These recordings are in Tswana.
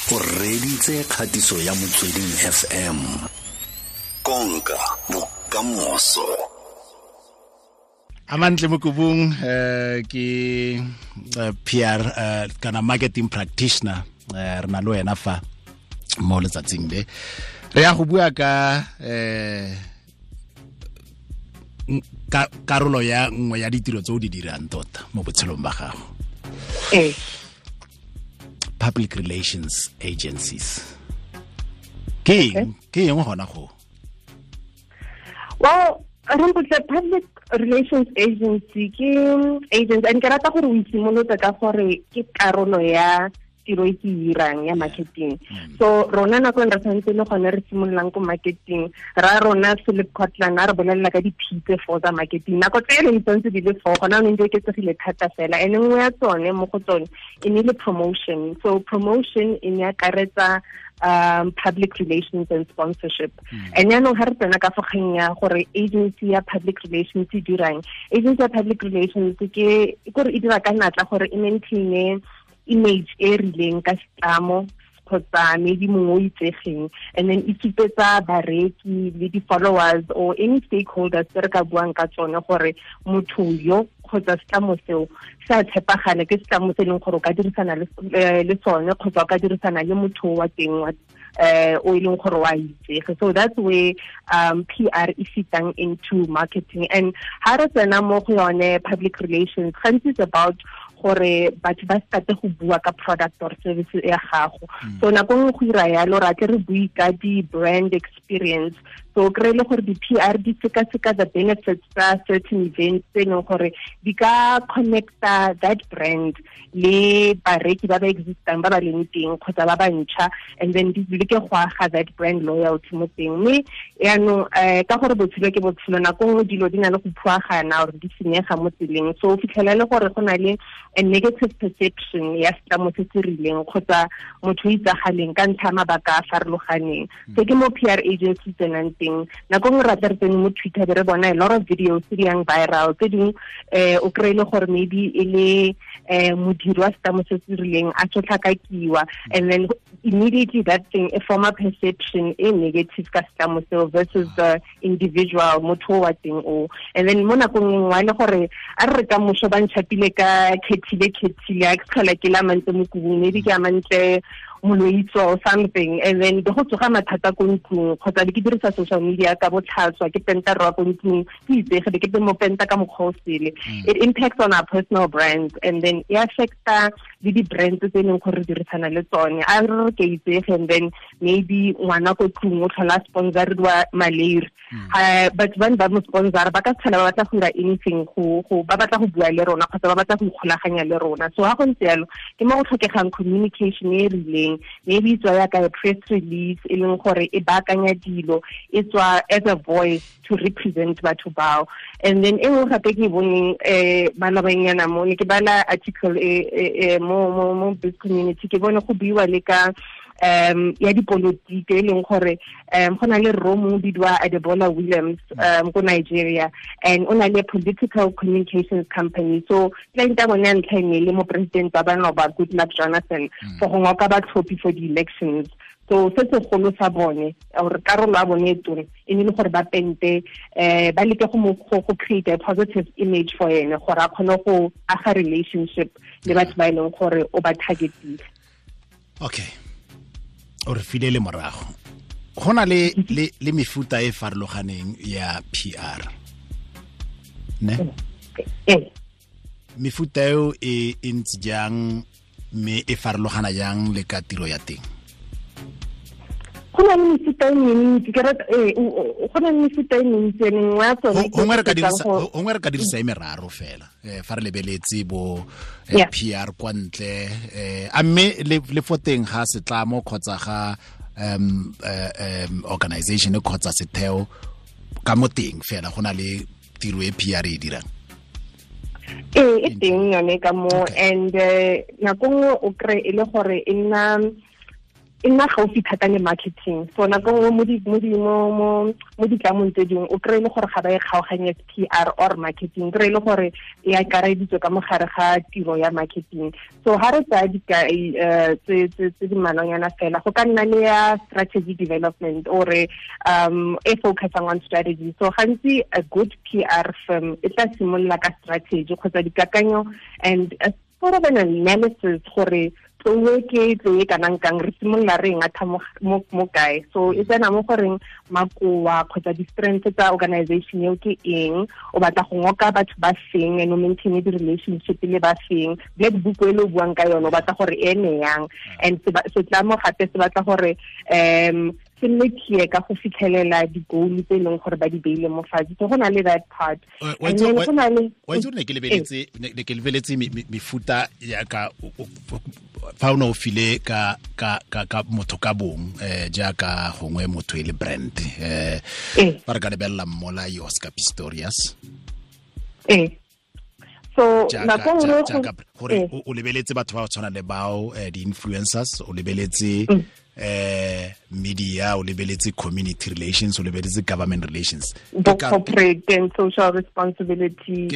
O reditse kgatiso ya Motsweding FM. Konka bokamoso. Amantle Mokubung ke PR kana marketing practitioner, re na le wena fa mo letsatsing le re ya go bua ka karolo ya nngwe ya ditiro tse o di dirang tota mo botshelong ba gago. Public relations agencies. Ke eng gona go? Well, Rampotle, public relations agency ke agency, and ke rata gore o itshimolotse ka gore ke karolo ya tiro e ke irang ya marketing. So rona nako re tshwanetse le gone re simololang ko marketing, ra rona Philip Kotler a re bolelela ka di-P tse four tsa marketing. Nako tse re ntse di le four, gona o ntse oketsegile thata fela. And nngwe ya tsone mo go tsone e ne le promotion. So promotion e ne akaretsa public relations and sponsorship. And yaanong ga re tsena ka fogeng ya gore agency ya public relations e dirang, agency ya public relations ke gore e dira ka natla gore e maintain image e rileng ka setlamo kgotsa maybe mongwe o itsegeng, and then e supetsa bareki le di-followers or any stakeholders tse re ka buang ka tsone gore motho yo kgotsa setlamo seo se a tshepagale, ke setlamo se e leng gore o ka dirisana le sone kgotsa o ka dirisana le motho wa teng wa o e leng gore wa itsege. So that's where PR e fitang into marketing. And ha re tsena mo go yone public relations, gantsi it's about gore batho ba starte go bua ka product or service ya gago. So nako nngwe go ira yalo ra tle re bue ka di-brand experience. So kry le gore di-PR di sekaseka the benefits tsa certain events tse e leng gore di ka connecta that brand le bareki ba ba existang ba ba leng teng kgotsa ba ba ntšha, and then di leke go aga that brand loyalty mo teng. Mme yaanong ka gore botshelo ke botshelo, nako nngwe dilo di na le go phuagana or di senyega mo tseleng. So o fitlhela le gore go na le a negative perception ya setlamo se se rileng kgotsa motho o itsagaleng ka ntlha ya mabaka a farologaneng. So ke mo PR agency tsenang teng. Nako nngwe ra tle re tsene mo Twitter be re bona a lot of videos tse di yang viral, tse dingwe o kry-e le gore maybe e le modiri wa setlamo se se rileng a sotlhakakiwa, and then immediately that thing e forma perception e negative ka setlamo seo versus the individual motho wa teng o. And then mo nakong e nngwe le gore a re ka moso ba ntšhapile ka khethile a ke tlhola ke la Amantle Mokubung, maybe ke Amantle Moloitso or something, and then go tsoga mathata ko ntlong kgotsa ke dirisa social media ka botlhaswa, ke penta rwa ko ntlong, ke itsege be ke mo penta ka mokgwa o sele. It impacts on our personal brands, and then e affecta le di-brands tse e leng gore re dirisana le tsone. A re re ke itsege, and then maybe ngwana ko tlong o tlhola sponsoriwa malaria, batho ba ne ba mo sponsora ba ka tlhola ba batla go dira anything go ba batla go bua le rona kgotsa ba batla go ikgolaganya le rona. So ha go ntse yalo ke mo go tlhokegang communication e rileng, maybe e tswa yaka a press release e leng gore e baakanya dilo, e tswa as a voice to represent batho bao. And then e nngwe gape ke boneng malobanyana mo ne ke bala article e mo biz community, ke bone go buiwa le ka ya dipolotiki e leng gore go na le rro mongwe bidiwa Adebola Williams ko Nigeria, and o na le political communications company. So client ya bone ya ntlha e ne le mo president ba banoba Goodluck Jonathan for go ngoka batlhophi for the elections. So se segolo sa bone or karolo ya bone e tona e ne le gore ba pente ba leke go create a positive image for ene gore a kgone go aga relationship le batho ba e leng gore o ba targetile. Okay, o re file le morago. Go na le mefuta e farologaneng ya PR, ne? Mefuta eo e ntse jang mme e farologana jang le ka tiro ya teng? Go na le mefuta e mentsi, ke rata go na le mefuta e mentsi, e mengwe ya tsone gongwe re ka dirisa e meraro fela fa re lebeletse bo PR kwa ntle, a mme le fo teng ga setlamo kgotsa ga organization kgotsa setheo ka mo teng fela go na le tiro e PR e dirang. E teng yone ka mo, and nako nngwe o kry e le gore e nna E nna gaufi thata le marketing. So nako nngwe mo ditlamong tse dingwe o kry-e le gore ga ba e kgaoganye PR or marketing, kry-e le gore e akareditswe ka mogare ga tiro ya marketing. So ha re tsaya dikai tse di mmalwanyana fela, go ka nna le ya strategy development or e focusang on strategy. So gantsi a good PR firm e tla simolola ka strategy kgotsa dikakanyo and a sort of an analysis gore tloe ke tloe kanang kang, re simolola re ngatha mo kae. So e tsena mo goreng makoa kgotsa di-strengths tsa organization eo ke eng, o batla go ngoka batho ba feng and o maintain di-relationship le ba feng, black book e le o buang ka yone o batla gore e ene yang. And setlamo gape se batla gore se nne clear ka go fitlhelela di-goal tse e leng gore ba di beile mo fatshe. So go na le that part. Wa And then go na le itse gore ne ke lebeletse mefuta ya ka fa o ne o file ka motho ka bong, jaaka gongwe motho e le brand, fa re ka lebelela Mmolai Oscar Pistorius. So nako nngwe gore o lebeletse batho ba ba tshwana le bao, di-influencers, o lebeletse media, o lebeletse community relations, o lebeletse government relations, the corporate and social responsibility.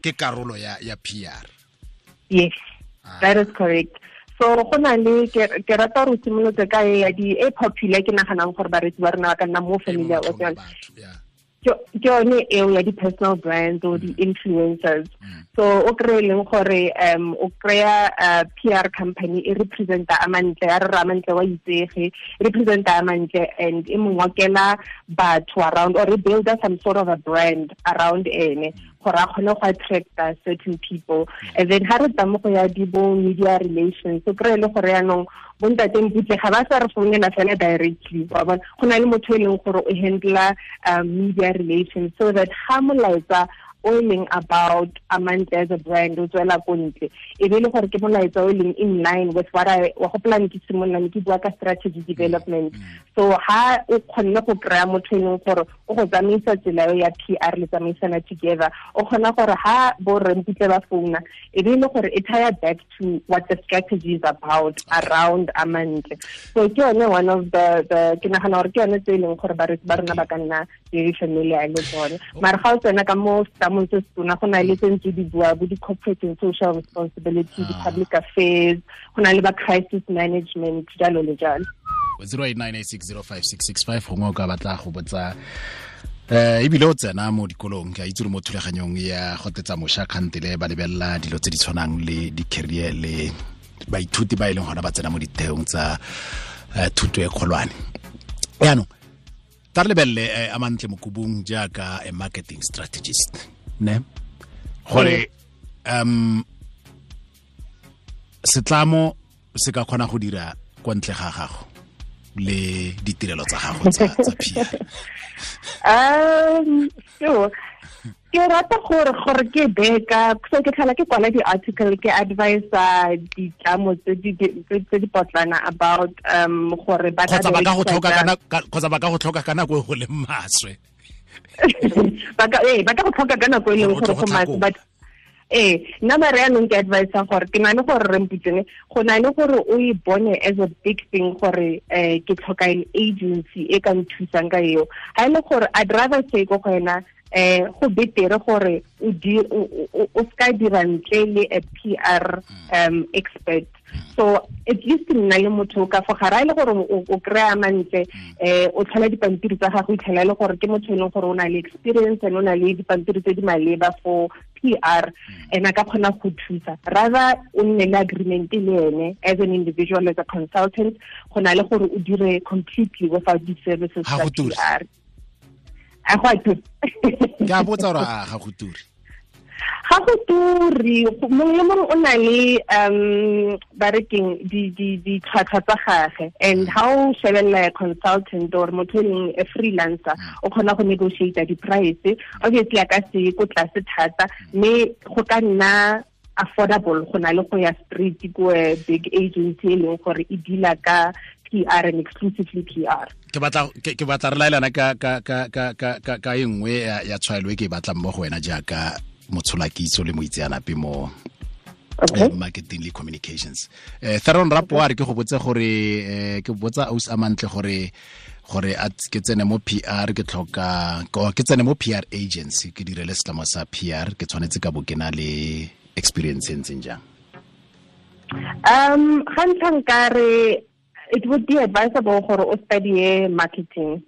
Ke karolo ya PR. Yes, that is correct. So go na le ke rata gore o simolotse ka e ya di e popular, ke naganang gore bareetsi ba rona ba ka nna mo familiar with yone. Ke yone eo ya di-personal brands or di-influencers. So o kry-e leng gore o kry-a PR company e representa Amantle, ya re re Amantle wa itsege, e representa Amantle and e mo ngokela batho around or e builda some sort of a brand around ene gore a kgone go attracta certain people. And then ha re tla mo go ya di bo media relations, so kry-e le gore yaanong bontate Mputle ga ba sa re founela fela directly, wa bona, go na le motho e leng gore o handla media relations, so that ha molaetsa o e leng about Amantle as a brand o tswela ko ntle, e be le gore ke molaetsa o e leng in line with what I wa gopola ne ke simolola ne ke bua ka strategy development. So ha o kgonne go kry-a motho e leng gore o go tsamaisa tsela eo ya PR le tsamaisana together, o kgona gore ha bo rre Mputle ba founa, e be le gore e tie back to what the strategy is about around Amantle. So ke yone one of the ke nagana gore ke yone tse e leng gore bareetsi ba rona ba ka nna very familiar le tsone. Mara ga o tsena ka mo setlamong se setona, go na le tse ntse di bua bo di-corporate and social responsibility, di-public affairs, go na le ba crisis management, jalo le jalo. 0898605665 gongwe o ka batla go botsa, ebile o tsena mo dikolong, ke a itse gore mo thulaganyong ya go tetsa mošwa kgantele ba lebelela dilo tse di tshwanang le di-career le baithuti ba e leng gona ba tsena mo ditheong tsa thuto e kgolwane. Yaanong ta re lebelele Amantle Mokubung jaaka a marketing strategist, ne gore setlamo se ka kgona go dira kwa ntle ga gago le ditirelo tsa gago tsa PR? So ke rata gore ke beka, so ke tlhola ke kwala di-article, ke advisa ditlamo tse di potlana about gore ba kgotsa ba ka go tlhoka ka kgotsa ba ka go tlhoka ka nako e go leng maswe. Ba ka go tlhoka ka nako e leng gore go maswe, but nna mare yanong ke advisa gore ke na le gore re mputsene, go na le gore o e bone as a big thing gore ke tlhoka an agency e ka nthusang ka eo. Ha e le gore I'd rather say ko go wena, go betere gore o ska dira ntle le a PR expert. So at least nna le motho ka fo gare, le gore o kry-a Amantle, o tlhola dipampiri tsa gago, itlhela le gore ke motho e leng gore o na le experience and o na le dipampiri tse di maleba for PR, and a ka kgona go thusa. Rather o nne le agreement le ene as an individual, as a consultant, go na le gore o dire completely without the services tsa PR. A go a ture. Ke a botsa gore a ga go ture. Ga go ture, mongwe le mongwe o na le ba re keng ditlhwatlhwa tsa gage, and ha o shebelela a consultant or motho e leng a freelancer, o kgona go negotiate di-price. Obviously a ka se ko tlase thata, mme go ka nna affordable go na le go ya street ko a big agency e leng gore e deala ka PR and exclusively PR. Ke batla re laelana ka e nngwe ya tshwaelo e ke e batlang mo go wena jaaka motsholakitso le moitseanape mo Okay. Marketing le communications. Theron Rapo a re ke go botse gore ke botsa aus amantle gore a ke tsene mo PR, ke tlhoka ke tsene mo PR agency, ke direle setlamo sa PR, ke tshwanetse ka bo ke na le experience e ntseng jang? Ga ntlha nkare it would be advisable gore o study marketing,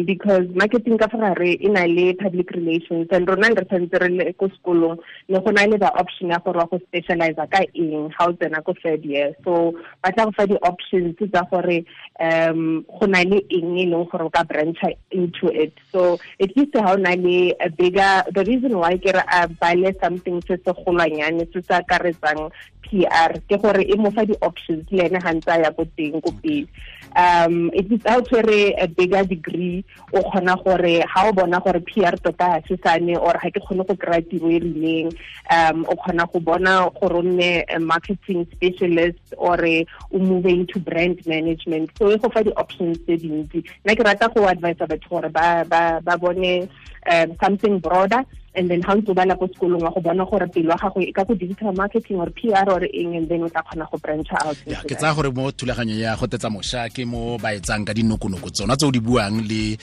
because marketing ka fa gare e na le public relations, and rona re tshwanetse re le ko sekolong ne go na le the option ya gore wa go specialize ka eng ga o tsena ko third year. So ba tla go fa di-options tsa gore go na le eng e leng gore o ka branch into it. So at least ha o na le a bigger, the reason why ke re a bale something se se golwanyane se se akaretsang PR ke gore e mo fa di-options le ene ga ntse a ya ko teng ko pele. It is out tshwere a bigger degree, o kgona gore ha o bona gore PR tota ha se sane or ha ke kgone go kry-a tiro e rileng, o kgona go bona gore o nne a marketing specialist or o move into brand management. So e go fa di-options tse dintsi. Nna ke rata go advise batho gore ba bone something broader, and then ha ntse o bala ko sekolong wa go bona gore pelo ya gago e ka go digital marketing or PR or eng, and then o tla kgona go branch out. Ya, ke tsaya gore mo thulaganyo ya go tetsa mošwa ke mo ba etsang ka dinokonoko tsona tse o di buang le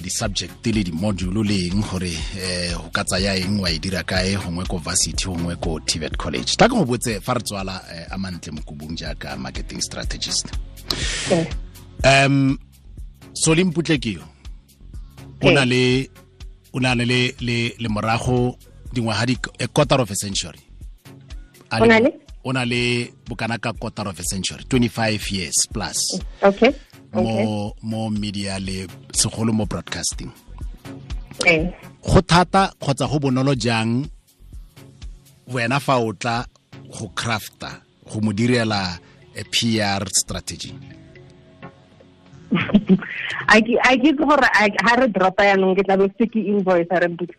di-subject le di-module le eng gore o ka tsaya eng wa e dira kae, gongwe ko varsity, gongwe ko TVET college. Tla ke go botse fa re tswala Amantle Mokubung jaaka marketing strategist. Solly Mputle ke yo o na le le morago dingwaga di a quarter of a century. O na le bokana ka quarter of a century, 25 years plus. Okay. Mo media le segolo mo broadcasting. Go thata kgotsa go bonolo jang wena fa o tla go crafta go mo direla a PR strategy? I ke gore ha re dropa yanong ke tla be se ke invoice re mputse.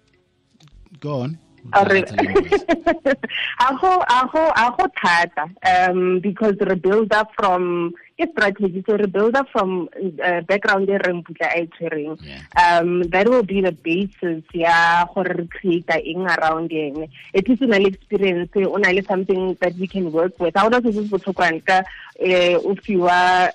Go on. A go thata, because re build up from ke strategy, so re build up from background e re mputla a e tshwereng. That will be the basis ya gore re create eng around ene. At least o na le experience, o na le something that we can work with. Ha ona se se botlhokwa ka o fiwa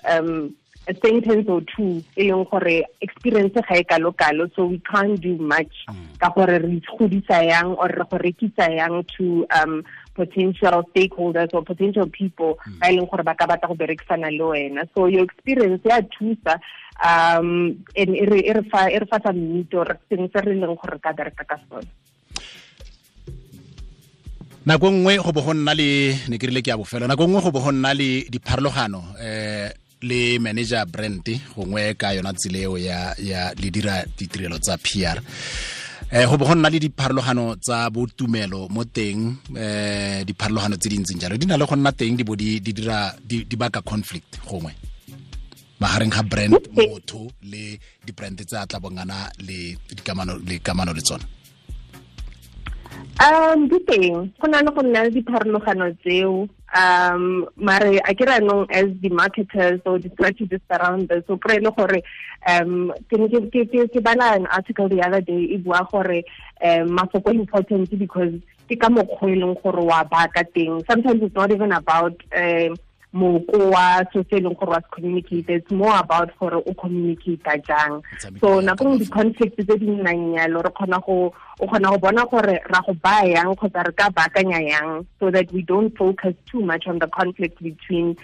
a sentence or two e leng gore experience ga e kalo-kalo, so we can't do much ka gore re godisa yang or re go rekisa yang to potential stakeholders or potential people ba e leng gore ba ka batla go berekisana le wena. So your experience ya thusa, and e re fa sa nnete or sengwe se re leng gore re ka bereka ka sone. Nako nngwe go bo go nna le, ne ke rile ke ya bofelo, nako nngwe go bo go nna le dipharologano le manager brand gongwe ka yona tsela eo ya le dira ditirelo tsa PR. Go bo go nna le dipharologano tsa botumelo mo teng, dipharologano tse di ntseng jalo di na le go nna teng, di bo di dira di baka conflict gongwe magareng ga brand motho le di-brand tse a tla bongana le dikamano le kamano le tsona. Di teng, go na le go nna le dipharologano tseo. Mare a ke re anong as the marketers or the strategists around this, so kry le gore ke bala an article the other day e bua gore mafoko important because ke ka mokgwa e leng gore wa baka teng. Sometimes it's not even about moko wa so se leng gore wa se communicate, it's more about gore o communicate jang. So nako nngwe di-conflict tse di nnang yalo re kgona go o kgona go bona gore ra go baya yang kgotsa re ka baakanya yang, so that we don't focus too much on the conflict between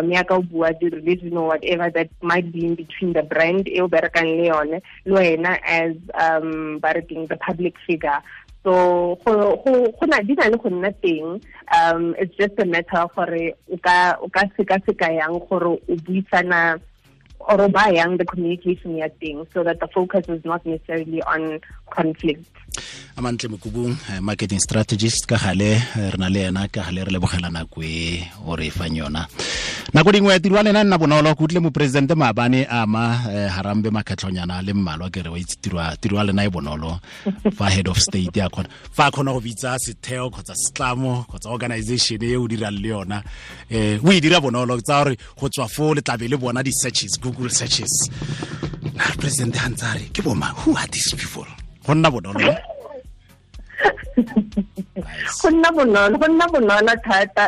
ya ka o bua the religion or whatever that might be in between the brand e o berekang le yone le wena as ba re keng the public figure. So go na di na le go nna teng, it's just a matter of gore o ka sekaseka yang gore o buisana or ba yang the communication ya teng, so that the focus is not necessarily on conflict. Amantle Mokubung, marketing strategist ka gale re na le ena, ka gale re lebogela nako e o re fang yona. Nako dingwe tiro ya lena nna bonolo, ke utlwile moporesidente maabane ama Harambe makgetlhonyana le mmalwa, ke re wa itse tiro ya lena e bonolo fa head of state ya kgona fa a kgona go bitsa setheo kgotsa setlamo kgotsa organization e o dirang le yona, o e dira bonolo tsa gore go tswa foo le tlabe le bona di-searches, Google searches. President ha ntse a re ke bo mang, who are these people? Go nna bonolo. Go nna bonolo thata,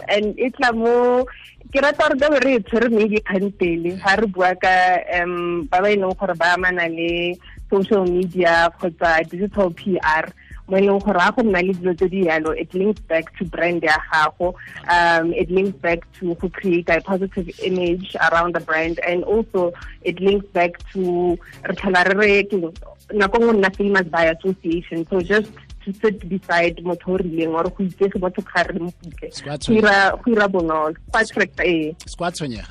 and e tla mo ke rata gore ka be re e tshwere maybe kgantele ga re bua ka ba ba e leng gore ba amana le social media kgotsa digital PR, mo e leng gore ga go nna le dilo tse di yalo, it links back to brand ya gago, it links back to go create a positive image around the brand, and also it links back to re tlhola re re nako nngwe nna famous by association. So just to sit beside motho o rileng or go itsege motho ga re mo putle, go ira bonolo, go attract. Se kwa tshwenyega.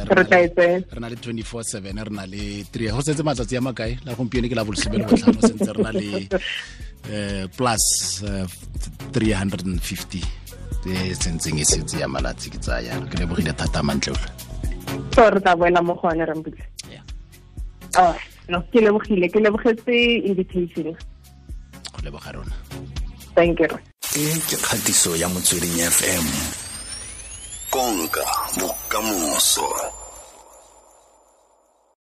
Re na le 24/7, re na le 3 go setse matsatsi a makae la gompieno ke la bolesome le botlhano, sentse re na le plus 350 e sentseng e setse ya malatsi ke tsaya. Ke lebogile thata mantle. So re tla boela mo go one, Rambutla. Oh, no, ke lebogile, ke lebogetse invitation. Go leboga rona. Thank you. E ke kgatiso ya Motsweding FM. Konka bokamoso.